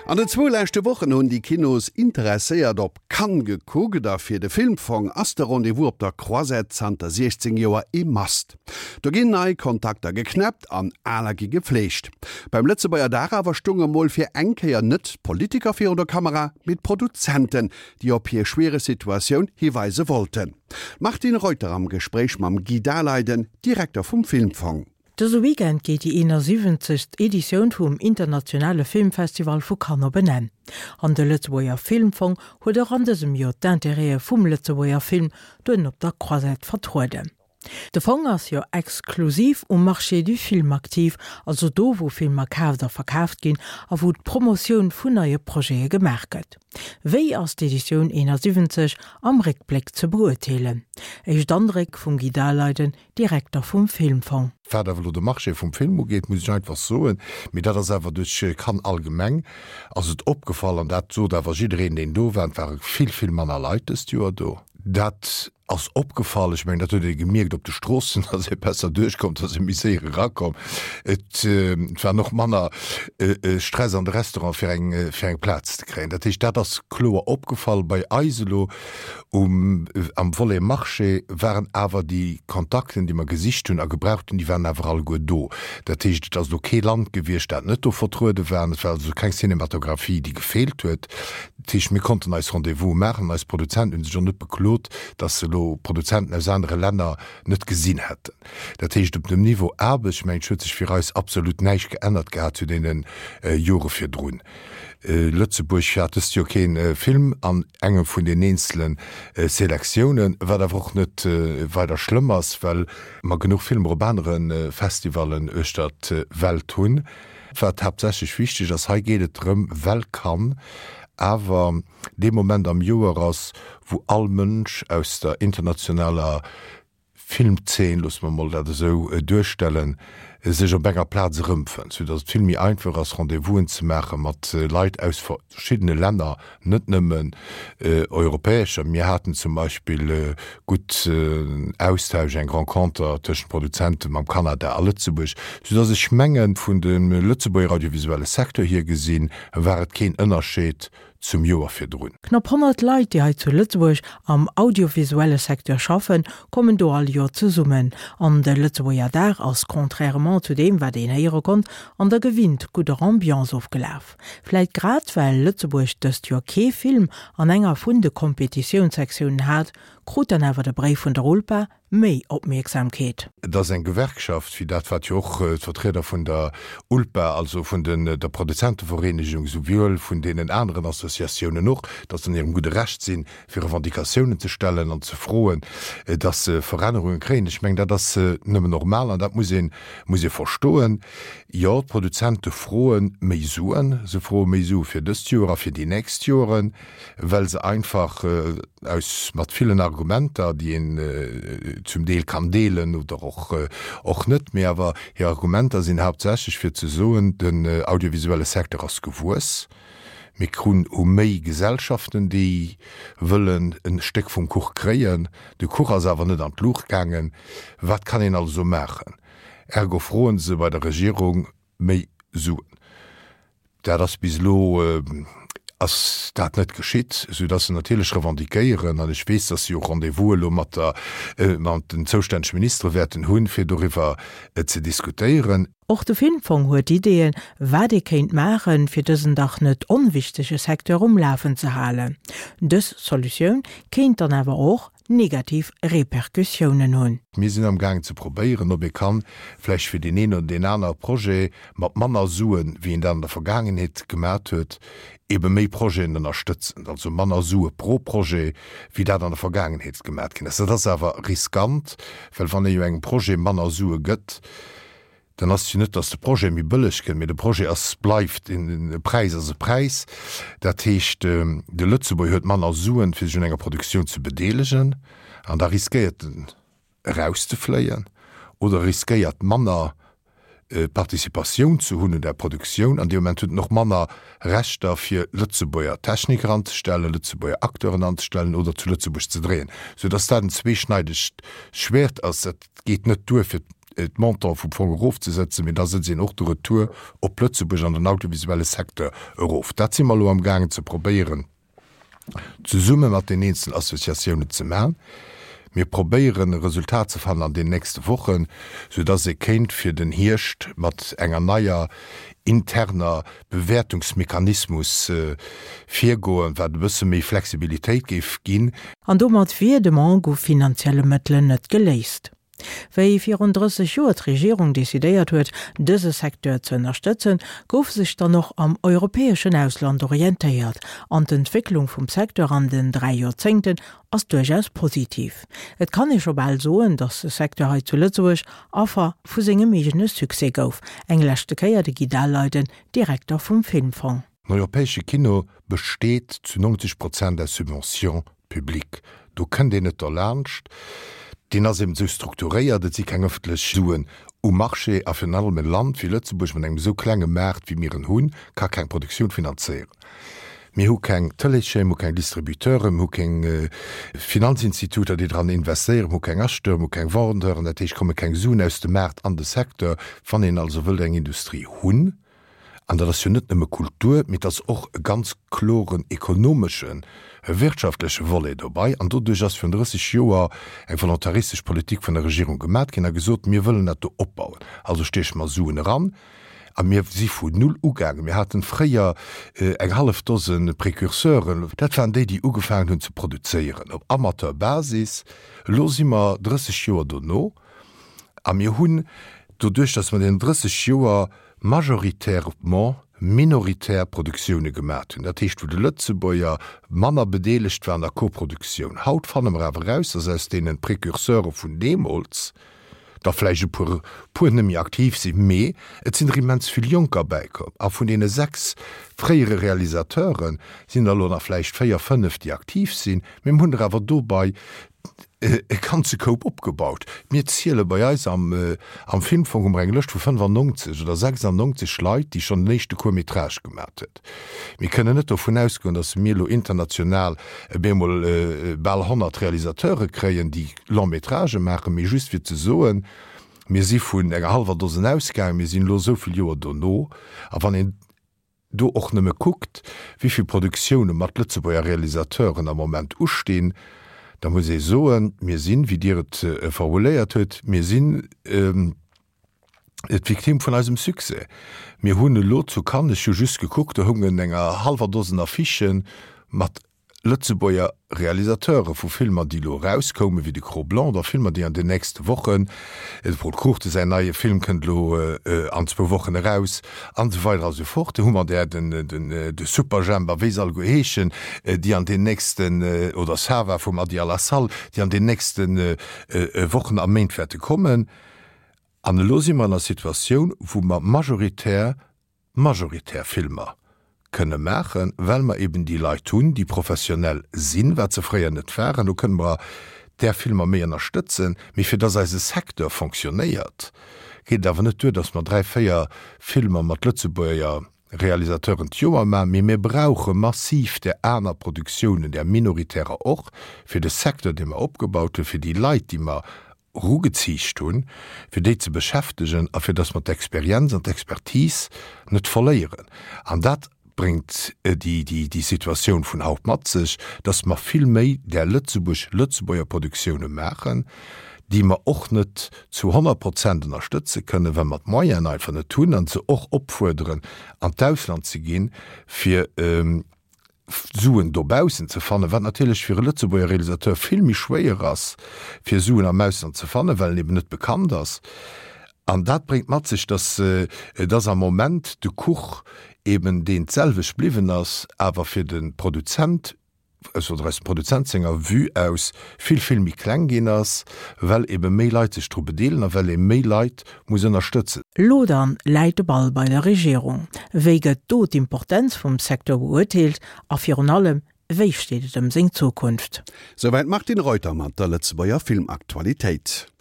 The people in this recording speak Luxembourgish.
An den zwou leschte Wochen hunn déi Kinosinteresséiert op Cannes gekuckt a fir de Filmfong ass de Rendez-vous op der Croisette zanter 16 Joer ee Must. Do ginn nei Kontakter geknäppt an aler gi gefleegt. Beim Lëtzebuerger Dag awer stounge mol fir eng Kéier net d'Politiker virun der Kamera, mee d'Produzenten, déi op hir schwiereg Situatioun hiweise wollten. D'Martine Reuter am Gespréich mam Guy Daleiden, Direkter vum Filmfong. Dëse Weekend geet déi 71. Editioun vum internationale Filmfestival vu Cannes op en Enn. An de Lëtzebuerger Filmfong huet och an dësem Joer d'Intérêtë vum Lëtzebuerger Film doheem op der Croisette vertrueden. De Fong ass jo exklusiv um Marché du film aktiv, also do wou Filmer kaaft a verkaaft ginn a wou d'Promotioun vun neie Projete gemaach gëtt. Wéi ass d'Editioun 71 am Réckbléck ze beurteelen? Éischt Andréck vum Guy Daleiden, Direkter vum Filmfong. Wat awer elo de Marché vum Film ugeet, muss ech einfach soen, mee dat ass awer duerch Cannes allgemeng, ass et opgefall, an dat sot awer jiddereen, deen do war, et ware vill, vill manner Leit dëst Joer do. Dat ass opgefall. Ech mengen, dat huet ee gemierkt op de Stroossen, datt ee besser duerchkomm, datt ee méi séier erakomm. Et war och manner Stress an de Restaurante fir eng, fir eng Plaz ze kréien. Dat heescht, dat ass kloer opgefall bei eis elo. Um, am Volet Marché waren awer déi Kontakten, déi mer gesicht hunn a gebraucht hunn, déi waren awer alleguer do. Dat heescht, et ass elo kee Land gewiescht, dat net do vertruede war. Et war also keng Cinematographie, déi gefeelt huet. Dat heescht, mir konnten eis Rendez-vouse maachen an eis Produzenten hu sech och net beklot, dass se elo Produzenten aus anere Länner net gesinn hätten. Dat heescht, op dem Niveau Aarbecht, mengen ech, huet sech fir eis absolut näischt geännert gehat zu deene Jore virdrun. Lëtzebuerg hat dëst Joer kee Film an engem vun den eenzele Selektiounen, wat awer och net weider schlëmm ass, well mer genuch Filmer op anere Festivallen uechter d'Welt hunn. Wat haaptsächlech wichteg ass, hei geet et drëm, well Cannes awer dee Moment am Joer ass, wou all Mënsch aus der internationaler Filmzeen, loosse mer mol dat esou duerstellen, sech op enger Plaz erëmfënnt, sou datt et vill méi einfach ass, Rendez-vousen ze maache mat Leit aus verschiddene Länner, net nëmmen europäescher. Mir haten zum Beispill gutt Austausch, eng Renconter tëschent Produzente mam Kanada a Lëtzebuerg, sou datt ech mengen, vun dem Lëtzebuerger audiovisuelle Secteur hier gesinn, war et keen Ënnerscheed zum Joer virdrun. Knapp 100 Leit, déi hei zu Lëtzebuerg am audiovisuelle Secteur schaffen, kommen do all Joer zesummen. An de Lëtzebuerger Dag ass, contrairement zu deem, wat een héiere konnt, an der gewinnt gudder Ambiance ofgelaf. Vläit grad well Lëtzebuerg dëst Joer kee Film an enger vun de Kompetitiounssektiounen hat, krut dann awer de Bréif vun der ULPA méi Opmierksamkeet. Et ass eng Gewerkschaft, wéi dat wat jo och d'Vertrieder vun der ULPA, also vun der Produzentevereenegung, souwuel vun deenen aneren Associatiounen och, datt se an hirem gudde Recht sinn, fir Revendicatiounen ze stellen an ze froen, datt se Verännerunge kréien. Ech mengen, dat ass nëmmen normal an dat muss ee muss ee verstoen. Jo, d'Produzente froe méi Suen. Se froe méi Sue fir dëst Joer a fir déi nächst Joren, well se einfach aus mat villen Argumenter, déi een zum Deel kann deelen oder och och net, mee awer hir Argumenter sinn haaptsächlech fir ze soen, den audiovisuelle Secteur ass gewuess, mir krun hu méi Gesellschaften, déi wëllen e Stéck vum Kuch kréien, de Kuch ass awer net an d'Luucht gaangen, wat kann een also maachen? Ergo froen se bei der Regierung méi Suen. Dat ass bis elo ass dat net geschitt, soudass se natierlech revendiquéieren, an ech weess, dass si och Rendez-vous elo mat der, mat den zoustännege Ministere wäerten hunn, fir doriwwer ze diskutéieren. Och de Filmfong huet Ideeën, wat ee kéint maachen, fir dësen dach net onwichtege Secteur um Lafen ze halen. Dës Solutioun kéint dann awer och negativ Repercussiounen hunn. Mir sinn am gaangen ze probéieren, ob ee kann vläicht fir deen een oder deen anere Projet mat manner Suen, wéi een dat an der Vergaangenheet gemat huet, ebe méi Projeten ënnerstëtzen, also manner Sue pro Projet, wéi dat an der Vergaangenheet gemat ginn ass. Dat ass awer riskant, well wann ee jo engem Projet manner Sue gëtt, Dann ass et jo net, datt de Projet méi bëlleg gëtt, mee de Projet ass, bleift, e Präis ass e Präis. Dat heescht, de Lëtzebuerger huet manner Suen, fir sech un enger Produktioun ze bedeelegen, an da riskéiert en erauszefléien oder riskéiert manner Participatioun ze hunn un där Produktioun. An dee Moment huet en och manner Rechter, fir Lëtzebuerger Techniker anzestellen, Lëtzebuerger Acteuren anzestellen oder zu Lëtzebuerg ze dréien, soudatt dat en zweeschneidegt Schwäert ass. Dat geet net duer, fir. d'Montant vum Fong erofzesetzen, mee da sëtzt een och de Retour op Lëtzebuerg an den audiovisuelle Secteur erof. Dat si mer elo amgaangen ze probéieren, zesumme mat den eenzelen Associatiounen ze maachen. Mir probéieren e Resultat ze fannen an den nächste Wochen, soudass ee kéint fir den Hierscht mat enger neier interner Bewäertungsmechanismus virgoen, wat e bësse méi Flexibilitéit géif ginn. An domat wier de Manque u finanzielle Mëttelen net geléist. Wéi virun 30 Joer d'Regierung decidéiert huet, dëse Secteur ze ënnerstëtzen, gouf sech dann och am europäeschen Ausland orientéiert. An d'Entwécklung vum Secteur an den 3 Joerzéngten ass duerchaus positiv. Et kann ee scho bal soen, datt de Secteur hei zu Lëtzebuerg Affer vu sengem eegene Succès gouf. Eng leschte Kéier de Guy Daleiden, Direkter vum Filmfong. Den europäesche Kino besteet zu 90 Prozent aus Subventions publiques. Do kënnt een net derlaanscht. Deen ass eben esou strukturéiert, et si keng ëffentlech Suen um Marché. A virun allem e Land wéi Lëtzebuerg mat engem esou klenge Maart wéi mir en hunn, ka keng Produktioun finanzéieren. Mir hu keng Tëleeschaîne, mir hu keng Distributeuren, mir hu keng Finanzinstituter, déi dran investéieren, mir hu keng Acheteuren, mir hu keng Vendeuren. Dat heescht, komme keng Suen aus dem Maart an de Secteur. Wann een also wëllt eng Industrie hunn, an dat ass jo net nëmme Kultur, mee et ass och e ganz kloren ekonomeschen, e wirtschaftleche Volet dobei, an doduerch ass virun 30 Joer eng volontaristesch Politik vun der Regierung gemat ginn a gesot, mir wëllen dat do opbauen, also stieche mer Suen eran. A mir si vun null ugaangen. Mir haten fréier eng hallef Dose Precurseuren, dat waren déi, déi ugefaangen hunn ze produzéieren op Amateurbasis. Elo si mer 30 Joer dono a mir hunn doduerch, datt mer deenen 30 Joer majoritairement minoritär Produktioune gemat hunn, dat heescht wou de Lëtzebuerger manner bedeelegt war an der Koproduktioun. Haut fanne mer awer eraus, datt aus deene Precurseure vun deemools der vläicht e puer puer net méi aktiv sinn, mee et sinn der immens vill Jonker bäikomm. A vun deene 6 fréiere Realisateure sinn der elo nach vläicht 4, 5, déi aktiv sinn, mee mir hunn der awer dobei e ganze Koup opgebaut. Mir ziele bei eis am am Filmfong hu mer eng Lëscht vu 95 oder 96 Leit, déi schonn den éischte Court-métrage gemat huet. Mir kënnen net dovun ausgoen, datt mir elo international op eemol bal 100 Realisateure kréien, déi Long-métragë maachen, mee just fir ze soen, mir si vun enger hallwer Dosen ausgaangen, mir sinn elo esou vill Joer dono, a wann een do och nëmme kuckt, wéi vill Produktioune mat Lëtzebuerger Realisateuren am Moment ustinn, da muss ee soen, mir sinn, wéi Dir et formuléiert hutt, mir sinn d'Victime vun eisem Succès. Mir hunn elo zu Cannes, ech hu just gekuckt, do houngen enger hallwer Dosen Affichë mat Lëtzebuerger Realisateure vu Filmer, déi elo erauskoumen, wéi de Cro-Blanc oder Filmer, déi an den nächste Wochen, de Pol Cruchten säin neie Film kënnt elo an zwou Wochen eraus, an esou weider a sou fort. Do hu mer där, den, den, de Superjhemp a wéi se alleguer heeschen, déi an den nächsten, oder Sava vum Adi Alassal, déi an den nächste Wochen a Méint wäerte kommen. An elo si mer an der Situatioun, wou mer majoritär majoritär Filmer kënne maachen, well mer eben déi Leit hunn, déi professionell sinn, wat se fréier net waren. Do kënne mer där Filmer méi ënnerstëtzen. Mee fir dass eise Secteur fonctionnéiert, geet et awer net duer, dass mer dräi, véier Filmer mat Lëtzebuerger Realisateuren d'Joer maachen, mee mir brauche massiv där aner Produktiounen, där minoritärer och, fir de Secteur, dee mer opgebaut hunn, fir déi Leit, déi mer erugeziicht hunn, fir déi ze beschäftegen a fir datt mer d'Experienz an d'Expertise net verléieren. An dat bréngt déi Situatioun vun haut mat sech, datt mer vill méi där Lëtzebuerg, Lëtzebuerger Produktioune maachen, déi mer och net zu 100 Prozent ënnerstëtze kënnen, well mer d'Moyenen einfach net hunn, an se och opfuerderen, an d'Ausland ze ginn, fir Suen dobaussen ze fannen, wat natierlech fir e Lëtzebuerger Realisateur vill méi schwéier ass, fir Suen am Ausland ze fannen, well en eben net bekannt ass. An dat bréngt mat sech, dass dass am Moment de Kuch eben deen d'selwecht bliwwen ass, awer fir de Produzent, aus oder aus dem Produzent senger Vue aus, vill, vill méi kleng ginn ass, well ebe méi Leit sech dru bedeelen a well ee méi Leit muss ënnerstëtzen. Lo dann läit de Ball bei der Regierung. Wéi gëtt do d'Importenz vum Secteur beurteelt a virun allem, wéi steet et ëm seng Zukunft? Souwäit d'Martine Reuter mat der Lëtzebuerger Filmaktualitéit.